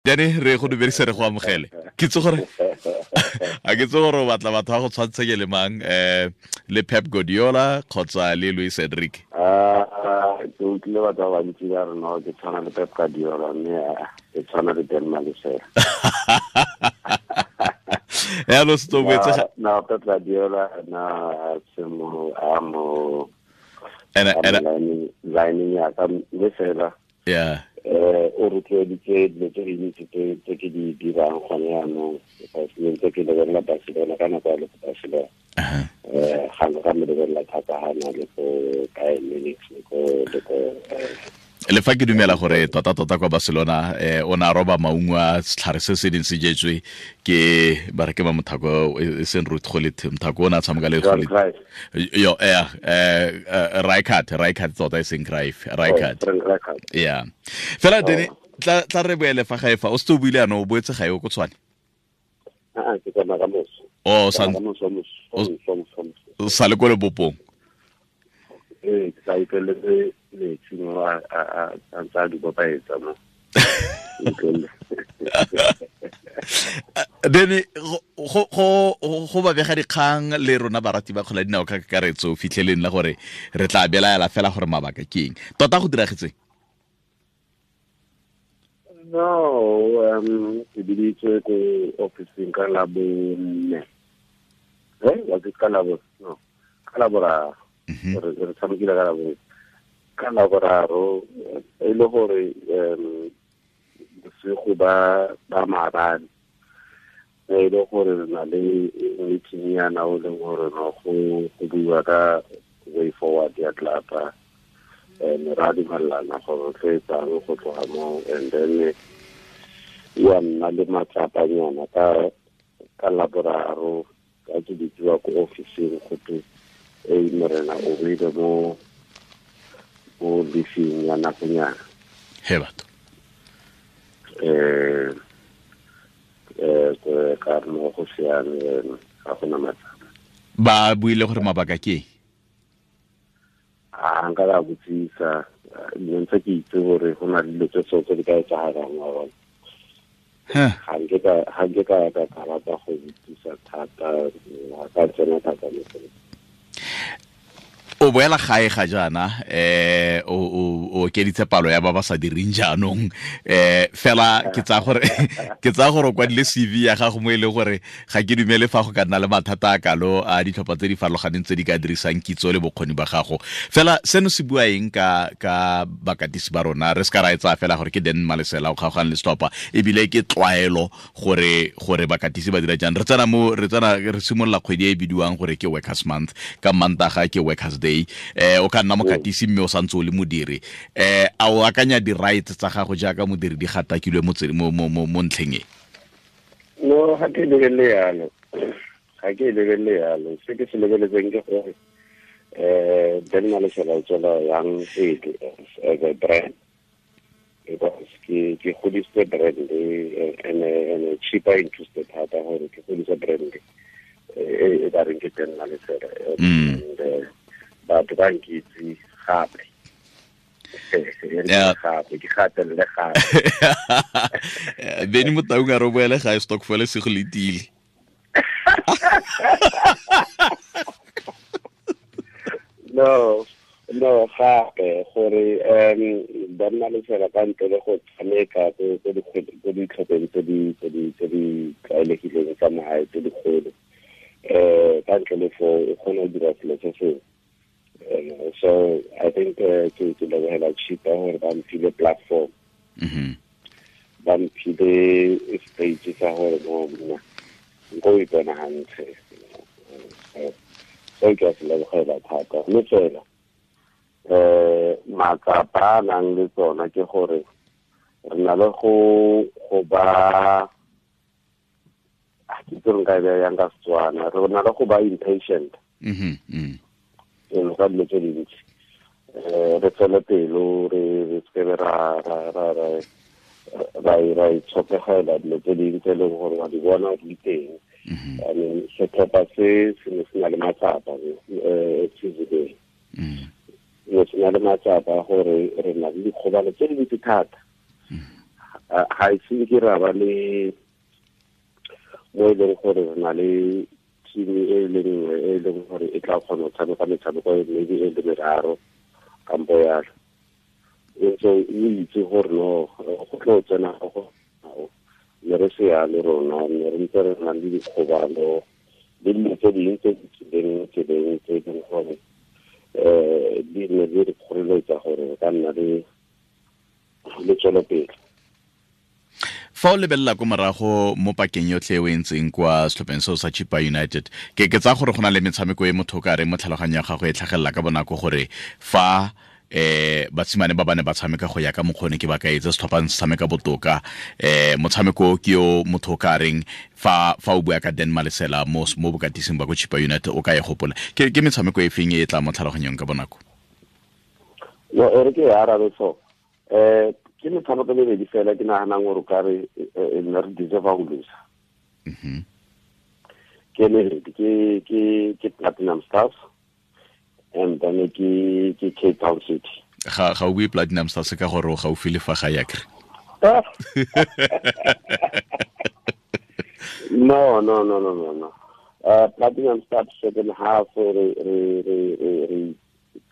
Jane re go dumedise, re go amogele. Ke itse gore a ke itse gore o batla batho ba go tshwantshanye le mang, le Pep Guardiola kgotsa le Luis Enrique? Ke utlwile batho ba bantsi ba re no ke tshwana le Pep Guardiola, mme ke tshwana le Dan Malesela. Ya lo se boetse No, Pep Guardiola na se mo a mo ena lining ya ka, mme fela o rotloeditse dilo tse dintsi tse ke di dirang gone jaanong, because ne ntse ke lebelela Barcelona ka nako ya le ko Barcelona. Ga ka mo lebelela thata ga na le ko Bayern Munich le ko Le fa ke dumela gore tota-tota kwa Barcelona o ne a roba maungo a setlhare se se neng se jetswe ke ba re ke ba mothako e seng Ruud Gullit, mothako o ne a tshameka le Johan Gullit. Cruyff. Yo, Rijkaard tota, e seng Cruyff, Rijkaard. Oh, Frank Rijkaard. Yeah, fela Dene, tla re boele fa gae fa o setse o buile ano o boetse gae o ko Tshwane. Ah, ke tsamaya ka moso. O sa Ka moso, moso, moso, moso, moso. O sa le ko lebopong? Ee, ke sa utlweletse metsi mo a ntse a di bopaetsa mo. Utlweletse. Dene, go ba bega dikgang le rona barati ba kgola dinao ka kakaretso fitlheleng la gore re tla belaela fela gore mabaka ke eng tota go diragetseng. No, ke biditswe ko officing ka Labone. Was it ka Labo? No, ka Laboraro. Re tshamekile ka Labone. Ka Laboraro, e le gore bosigo ba maabane e le gore re na le meeting yana o leng gore no go buiwa ka way forward ya club, and ra dumelana gore re tlo etsang go tloga mo, and then wa nna le matsapanyana ka Laboraro ka ke bitsiwa ko officing, go twe e morena o beile mo leafing ya nakonyana. He batho! Ka re mo go siame, ga gona matsapa. Ba buile gore mabaka ke eng? A nka ka botsisa, ne ntse ke itse gore go na le dilo tse so tse di ka etsagalang, wa bona. Ga nke ka rata go botsisa thata, ga ka tsena thata mo go. O boela gae ga jaana, o okeditse palo ya ba ba sa direng jaanong, fela ke tsaya gore o kwadile CV ya gago mo e leng gore ga ke dumele fa go ka nna le mathata a kalo a ditlhopha tse di farologaneng tse di ka dirisang kitso le bokgoni ba gago. Fela seno se bua eng ka bakatisi ba rona? Re se ka ra e tsaya fela gore ke Dan Malesela o kgaogane le setlhopha, ebile ke tlwaelo gore bakatisi ba dira jang. Re tsena re simolola kgwedi e e bidiwang gore ke Workers Month, ka Mantaga ke Workers Day. O ka nna mokatisi mme o santse o le modiri. A o akanya di-rights tsa gago jaaka modiri di gatakilwe mo ntlheng e? No, ga ke lebelele yalo, ga ke lebelele yalo. Se ke se lebeletseng ke gore Dan Malesela o tswela yang pele as a brand, because ke godisitse brand and Chippa interested thata gore ke godise brand e ba reng ke Dan Malesela, and batho ba nkitse gape gape ke gatelele gape. Beny Motaung a re o boele gae, stokvel se go letile. No, gape gore ba nna le fela ka ntle le go tshameka ko ditlhopheng tse di tlwaelegileng tsa magae tse dikgolo, ka ntle le foo o kgona go dira selo se sengwe. So I think ke lebogela Chippa gore ba mphile platform, ba mphile stage sa gore no mna nko o ipona hantle. So ke a se lebogela thata, mme fela matsapa a nang le tsona ke gore re na le go ba, ke itse re nka e beya yang ka Setswana, re na le go ba impatient ka dilo tse dintsi. Re tswele pelo, re sekebe ra itshokegela dilo tse dingwe tse e leng gore wa di bona di teng. I mean, setlhopha se se ne se na le matsapa seasoneng, ne se na le matsapa gore re na le dikgobalo tse dintsi thata. Ga e se ke ra ba le mo e leng gore re na le team e le nngwe e leng gore e tla kgona go tshameka metshameko e maybe e le meraro kampo yalo. So o itse gore no go tlo tsena go ne re se yalo rona, ne re ntse re na le dikgobalo le dilo tse dingwe tse di tsileng tseleng tse e leng gore di ne di re kgoreletsa gore re ka nna le tswelopele. Fa o lebelela ko morago mo pakeng yotlhe e o e ntseng kwa setlhopheng seo sa Chippa United, ke tsaya gore go na le metshameko e motho o ka reng mo tlhaloganyong ya gago e tlhagelela ka bonako gore fa batshimane ba bane ba tshameka go ya ka mokgone ke ba ka etse setlhopha se tshameka botoka, motshameko ke yo motho o ka reng fa o bua ka Dan Malesela mo bokatising ba ko Chippa United o ka e gopola. Ke metshameko e feng e tla mo tlhaloganyong ka bonako? No, e re ke e arabe so. Ke metshameko e mebedi fela ke naganang gore o ka re nna re deserve go losa. Ke mebedi, ke Platinum Stars and then ke Cape Town City. Ga o bue Platinum Stars ka gore o gaufi le fa ga ya kre? No. Platinum Stars second half re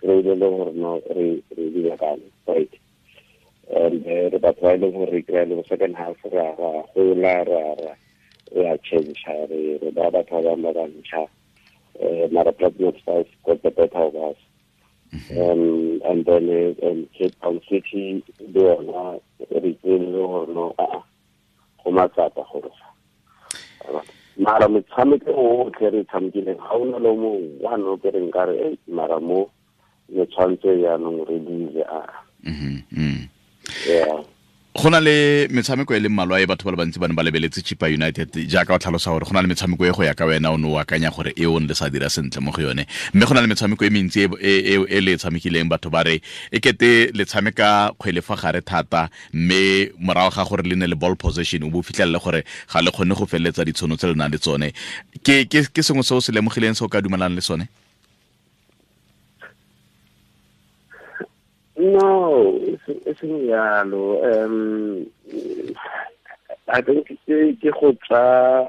kry-ile le gore no re dira kang, right? And re batho ba e leng gore re kry-a le second half ra gola, ra change, re ba batho ba bangwe ba bantšha. Mara Platinum Stars got the better of us. And then Cape Town City le yona re kry-ile le gore no go matsapa gore mara metshameko otlhe re tshamekileng ga ona le mo one o ke reng ka re mara mo le tshwanetse jaanong re dile a. Yeah. Go na le metshameko e le mmalwa e batho ba le bantsi ba ne ba lebeletse Chippa United, jaaka o tlhalosa gore go na le metshameko e go ya ka wena o ne o akanya gore e o ne le sa dira sentle mo go yone, mme go na le metshameko e mentsi e le e tshamekileng batho ba re e kete le tshameka kgwele fa gare thata, mme morago ga gore le ne le ball possession o bo fitlhelele gore ga le kgone go feleletsa ditshono tse le nang le tsone. Ke sengwe se o se lemogileng se o ka dumelang le sone? No, e seng yalo. I think ke go tsa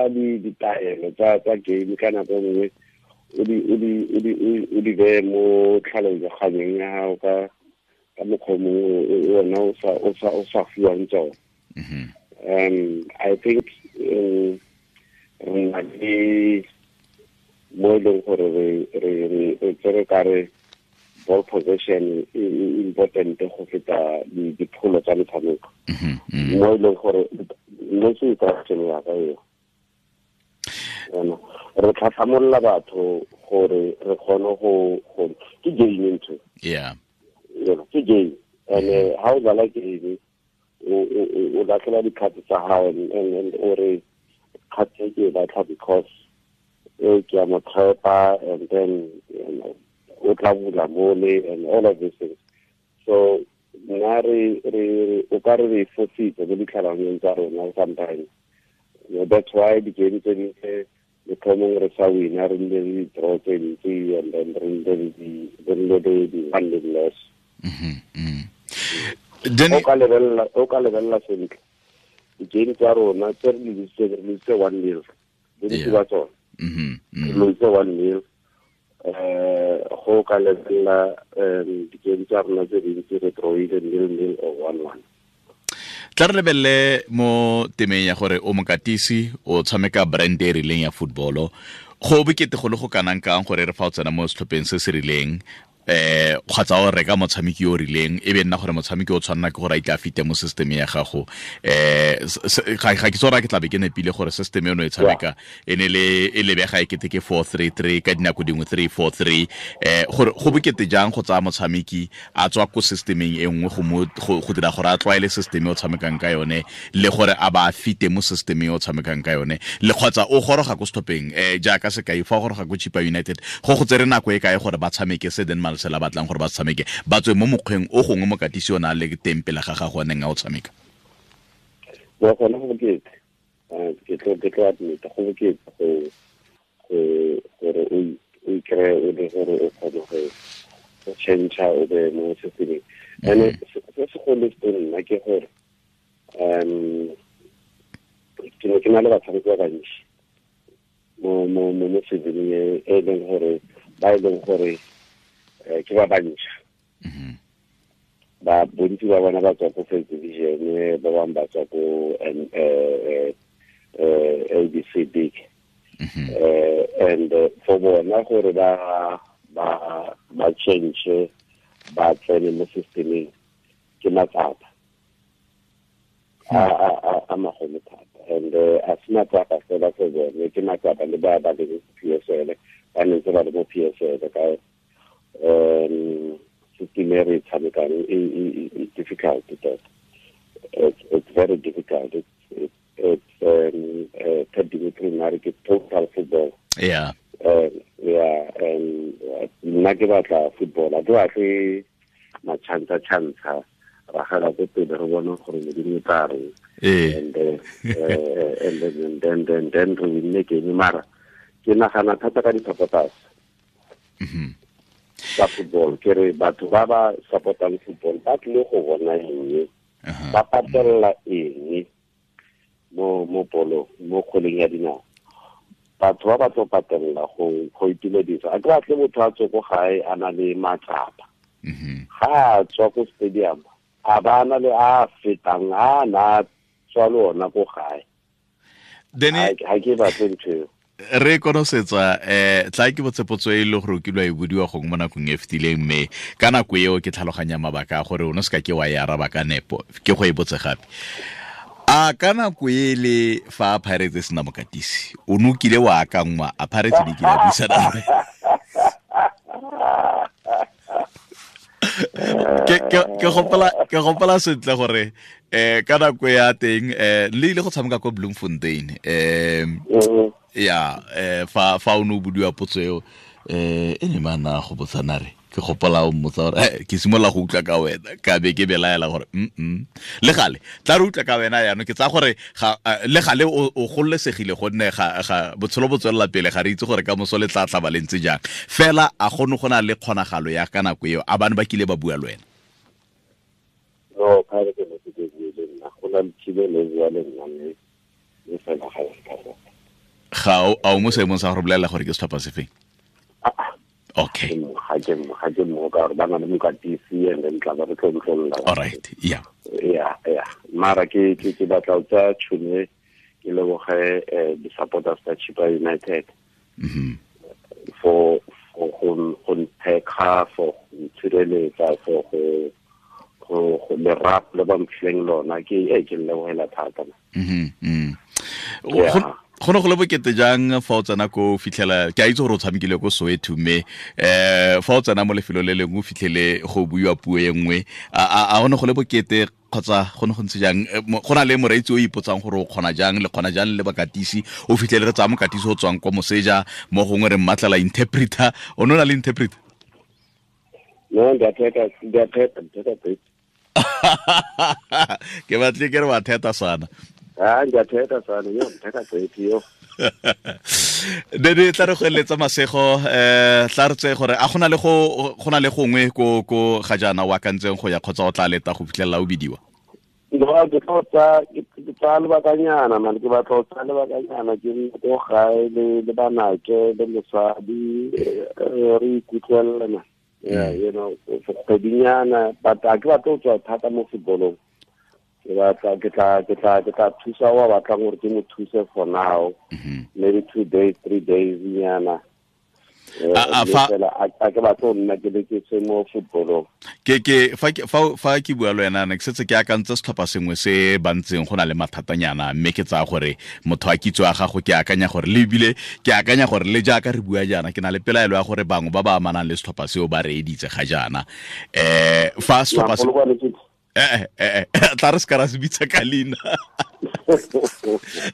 ditaelo tsa game ka nako nngwe o di beye mo tlhaloganyong ya gago ka mokgwa mongwe ona o sa fiwang tsone. I think re na le mo e leng gore re tsere ka re ball possession e important go feta dipholo tsa metshameko. Mo e leng gore mo se instruction ya ka eo. Re tlhatlhamolola batho gore re kgone go ke game ntho. Yeah. Ke game. And ha o dlala game o latlhela dikgato tsa gago and o re kgato e ke e batla because e ke a mo tshepa, and then o tla bula mole and all of these things. So nna re o ka re fositse mo ditlhaloganyong tsa rona sometimes. That's why di-game tse dintse motlhomong re sa wina, re nne le di-draw tse ntsi and then re nne le di-one nil loss. O ka lebelela sentle di-game tsa rona tse re lositse 1-0, bontsi ba tsone re lositse 1-0. Go ka lebelela di-game tsa rona tse dintsi re drawile 0-0 or 1-1. Tla re lebelele mo temeng ya gore o mokatisi o tshameka brand e rileng ya footballo, go bokete go le go kanang kang gore re fa o tsena mo setlhopheng se se rileng kgotsa o reka motshameki o rileng e be nna gore motshameki o tshwanna ke gore a itla fite mo system ya gago. Ga ke tsora ke tla be ke nepile gore system eno e tshameka e ne le e lebega e kete ke 4-3-3 ka dinako dingwe 3-4-3, gore go bokete jang go tsaya motshameki a tswa ko systemeng e nngwe go dira gore a tlwaele system e o tshamekang ka yone le gore a ba fite mo systemeng e o tshamekang ka yone, le kgotsa o goroga ko setlhopheng jaaka sekai fa o goroga ko Chippa United go tsere nako e kae gore ba tshameke se Den Malesela batlang gore ba tshameke ba tswe mo mokgweng o gongwe mokatisi o na le teng pele ga gago a neng a o tshameka? Wa gona go bokete, ke tlo admit go bokete gore o ikry-e o le gore o kgone go change o be mo systemeng. And se segolo se nna ke gore Ke ne ke na le batshameki ba bantsi mo seasoneng e leng gore ba e leng gore ke ba bantšha. Ba bontsi ba bona ba tswa ko first division, ba bangwe ba tswa ko ABC League. And for bona gore ba change ba tsene mo systemeng ke matsapa a magolo thata. And a se matsapa fela for bone, ke matsapa le ba ba leng PSL, ba ne ntse ba le mo PSL ka system e re tshamekang e difficult tota. It's very difficult. It's Ted Dimitri nare ke total football. Yeah, and nna ke batla football, a ke batle machantsha chantsha ragela ko pele re bone gore Modimo o tla reng. And then re winne game, mara ke nagana thata ka di-supporters tsa football. Ke re batho ba ba supportang football ba tlile go bona eng, ba patella eng mo polo, mo kgweleng ya dinao. Batho ba ba tlo patella go itumedisa. A ke batle motho a tswe ko gae a na le matsapa. Ga a tswa ko stadium a ba na le a fetang a na tswa le ona ko gae. Ha ke batle ntho eo. Re konosetsa tla ke botsepotso e le gore o kilwa e bodiwa gongwe mo nakong e fetileng, mme ka nako eo ke tlhaloganya mabaka a gore o ne se ka ke wa e araba ka nepo, ke go e botse gape. A ka nako e le fa Pirates e sena mokatisi, o ne o kile wa akangwa a Pirates di kile a buisana le wena? Ke gopola sentle gore ka nako ya teng le ile go tshameka kwa Bloemfontein. Ya fa o ne o bodiwa potso eo e ne mana go botsana re ke gopola o mmotsa gore ke simolola go utlwa ka wena, ka be ke belaela gore le gale tla re utlwa ka wena jaanong. Ke tsaya gore le gale o gololesegile gonne ga botshelo bo tswelela pele, ga re itse gore ka moso le tla tlaba le ntse jang. Fela a gone go na le kgonagalo ya ka nako eo a bane ba kile ba bua le wena? No, ka re ke ne ke bue le nna, go na le kile le bua le nna mme le fela ga ya ka go. Ga o mo seemong sa go bolelela gore ke setlhopha se feng? Okay. Ga ke mo ka gore ba na le mokatisi and then tla ba re tlontlolola. All right, yeah. Yeah. Mara ke batla go tsaya tšhono ke leboge di-supporters tsa Chippa United. For go nthekga, for go ntshireletsa, for go lerato le ba mphileng lona, ke lebogela thata. Go ne go le bokete jang fa o tsena ko fitlhela, ke a itse gore o tshamekile ko Soweto, mme fa o tsena mo lefelong le lengwe o fitlhele go buiwa puo e nngwe, a go ne go le bokete kgotsa go ne go ntse jang? Go na le moreetsi o ipotsang gore o kgona jang, le kgona jang le bakatisi, o fitlhele re tsaya mokatisi o tswang kwa moseja, mo gongwe re mmatlela interpreter. O ne o na le interpreter? No, ndiatheta. Ke batle ke re wa theta sana. Ndiatheta sana, yo, ndithetha gqithi yo. Dede tla re go eletsa masego, tla re tseye gore a gona le go gona le gongwe ko ga jaana o akantseng go ya kgotsa o tla leta go fitlhelela o bidiwa? No, ke tlo tsa ke tsaya lebakanyana man, ke batla go tsaya lebakanyana ke nne ko gae le banake le mosadi, re ikutlwelela man. Yeah, you know, for kgwedinyana, but a ke batla go tswa thata mo footballong. Ke batla ke tla thusa wa batlang gore ke mo thuse for now. Maybe 2 days, 3 days nyana. A ke batla go nna ke le ke se mo footballong. Ke fa ke bua le wena, ne ke setse ke akantse setlhopha sengwe se ba ntseng go na le mathatanyana, mme ke tsaya gore motho a kitso ya gago, ke akanya gore le ebile ke akanya gore le jaaka re bua jaana, ke na le pelaelo ya gore bangwe ba ba amanang le setlhopha seo ba reeditse ga jaana. Fa setlhopha se tla re se ka ra se bitsa ka leina.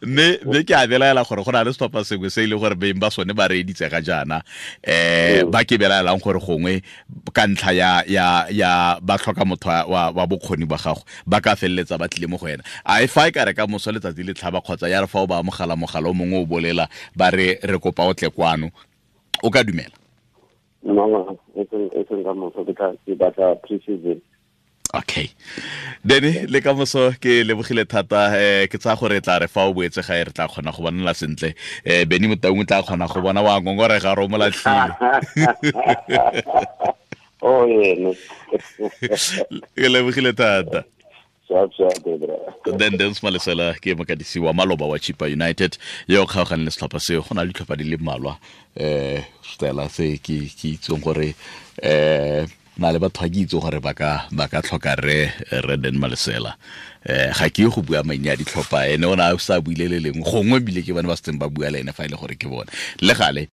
Mme ke a belaela gore go na le setlhopha sengwe se e leng gore beng ba sone ba reeditse ga jaana, ba ke belaelang gore gongwe ka ntlha ya ba tlhoka motho wa bokgoni ba gago, ba ka feleletsa ba tlile mo go wena. A e fa e ka re ka moso letsatsi le tlhaba kgotsa ya re fa o ba amogela mogala o mongwe o bolela ba re re kopa o tle kwano, o ka dumela? No, e seng ka moso, ke batla pre-season. Okay, Dene, le ka moso ke lebogile thata. Ke tsaya gore tla re fa o boetse gae re tla kgona go bonela sentle. Beny Motaung o tla kgona go bona wa ngongorega re o mo latlhile. Oh, ene. Ke lebogile thata. Then Dance Malesela ke mokatisi wa maloba wa Chipa United yo kgaogane le setlhopha seo. Go na le ditlhopha di le mmalwa stela se ke itseng gore na le batho ga ke itse gore ba ka tlhoka re Den Malesela. Ga ke go bua maina a ditlhopha, ene o ne a sa buile le lengwe, gongwe bile ke bone ba setseng ba bua le ene fa e le gore ke bone le gale.